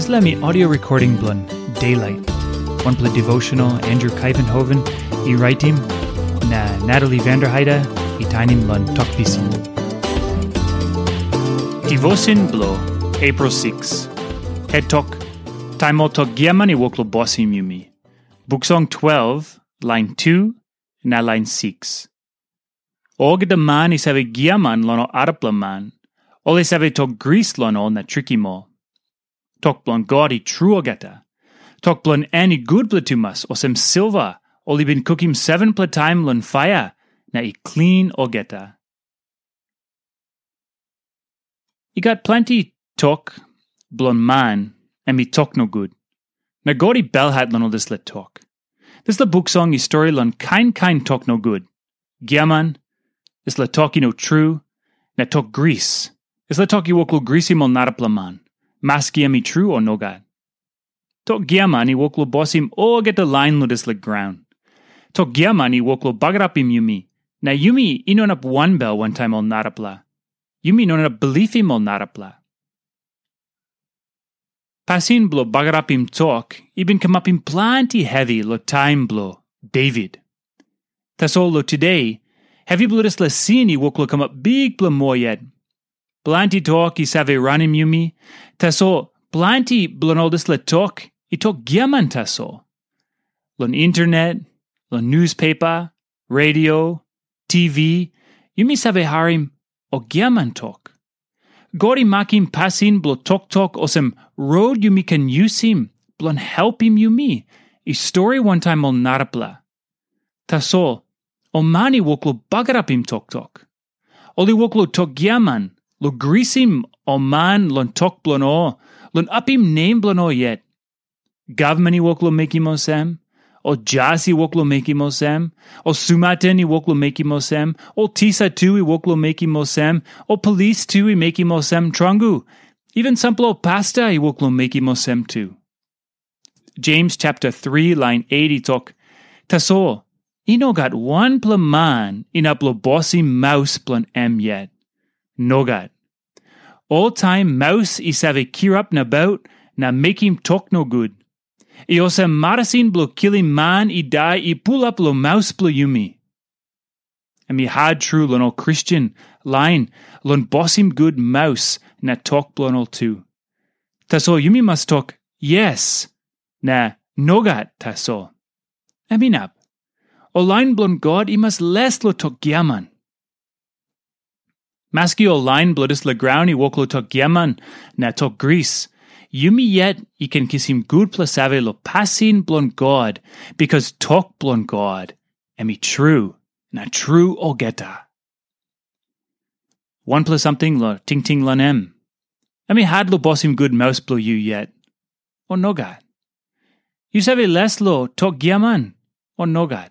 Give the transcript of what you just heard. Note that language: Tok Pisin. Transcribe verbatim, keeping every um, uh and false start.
Dispela mi audio recording bilong Daylight, wanpela devotional Andrew Kaivenhoven i raitim, na Natalie Vanderheide i tainim long Tok Pisin. Devotion bilong April six. Het tok, taim ol tok giaman i wok long bosim yumi. Buk Song twelve, lain two, na lain six. Olgeta man i save giaman long ol arapela man, ol i save tok gris long ol na trikim ol. Tok bilong God i tru olgeta. Tok bilong en i gutpela tumas, olsem silva ol i bin kukim sevenpela taim long paia na i klin olgeta. I gat planti tok bilong man em i tok nogut. Na God i belhat long ol dispela tok. Dispela buk song i stori long kain kain tok nogut. Giaman, dispela tok i no tru, na tok gris. Dispela tok i wok long grisim ol narapela man, maski em i tru o nogat. Tok giaman i wok long bosim olgeta lain long dispela graun. Tok giaman i wok long bagarapim yumi, na yumi i no inap wanbel wantaim ol narapela. Yumi no inap bilipim ol narapela. Pasin bilong bagarapim tok i bin kamapim planti hevi long taim bilong Devit. Tasol long tude, hevi bilong dispela sin i wok long kamap bikpela moa yet. Planti tok i save ranim yumi, tasol planti bilong ol dispela tok i tok giaman tasol. Long internet, long newspaper, radio, T V, yumi save harim ol giaman tok. God i makim pasin bilong toktok olsem rot yumi ken yusim bilong helpim yumi i stori wantaim ol narapela. Tasol, ol man i wok long bagarapim toktok. Ol i wok long tok giaman, long grisim ol man long tok bilong ol, long apim nem bilong ol yet. Gavman i wok long mekim olsem, ol jas i wok long mekim olsem, ol sumaten i wok long mekim olsem, ol tisa tu i wok long mekim olsem, ol polis tu i mekim olsem, tromoi, even sampela ol pasta i wok long mekim olsem tu. Jems chapter three lain eight i tok, tasol, i no gat wanpela man inap long bosim maus bilong em yet. Nogat. Oltaim maus i save kirap nabaut na mekim tok nogut. I olsem marasin bilong kilim man i dai i pulap long maus bilong yumi. Em i hat tru long ol Kristen lain long bosim gut maus na tok bilong ol tu. Tasol yumi mas tok yes na nogat tasol. Em inap. Ol lain bilong God i mas les long tok giaman. Maski ol lain bilong dispela graun i wok long tok giaman na tok gris, yumi yet i ken kisim gutpela save long pasin bilong God, bikas tok bilong God em i tru na tru olgeta. Wanpela samting long tingting long em. Em i hat long bosim gut maus bilong yu yet, o nogat? Yu save les long tok giaman, o nogat?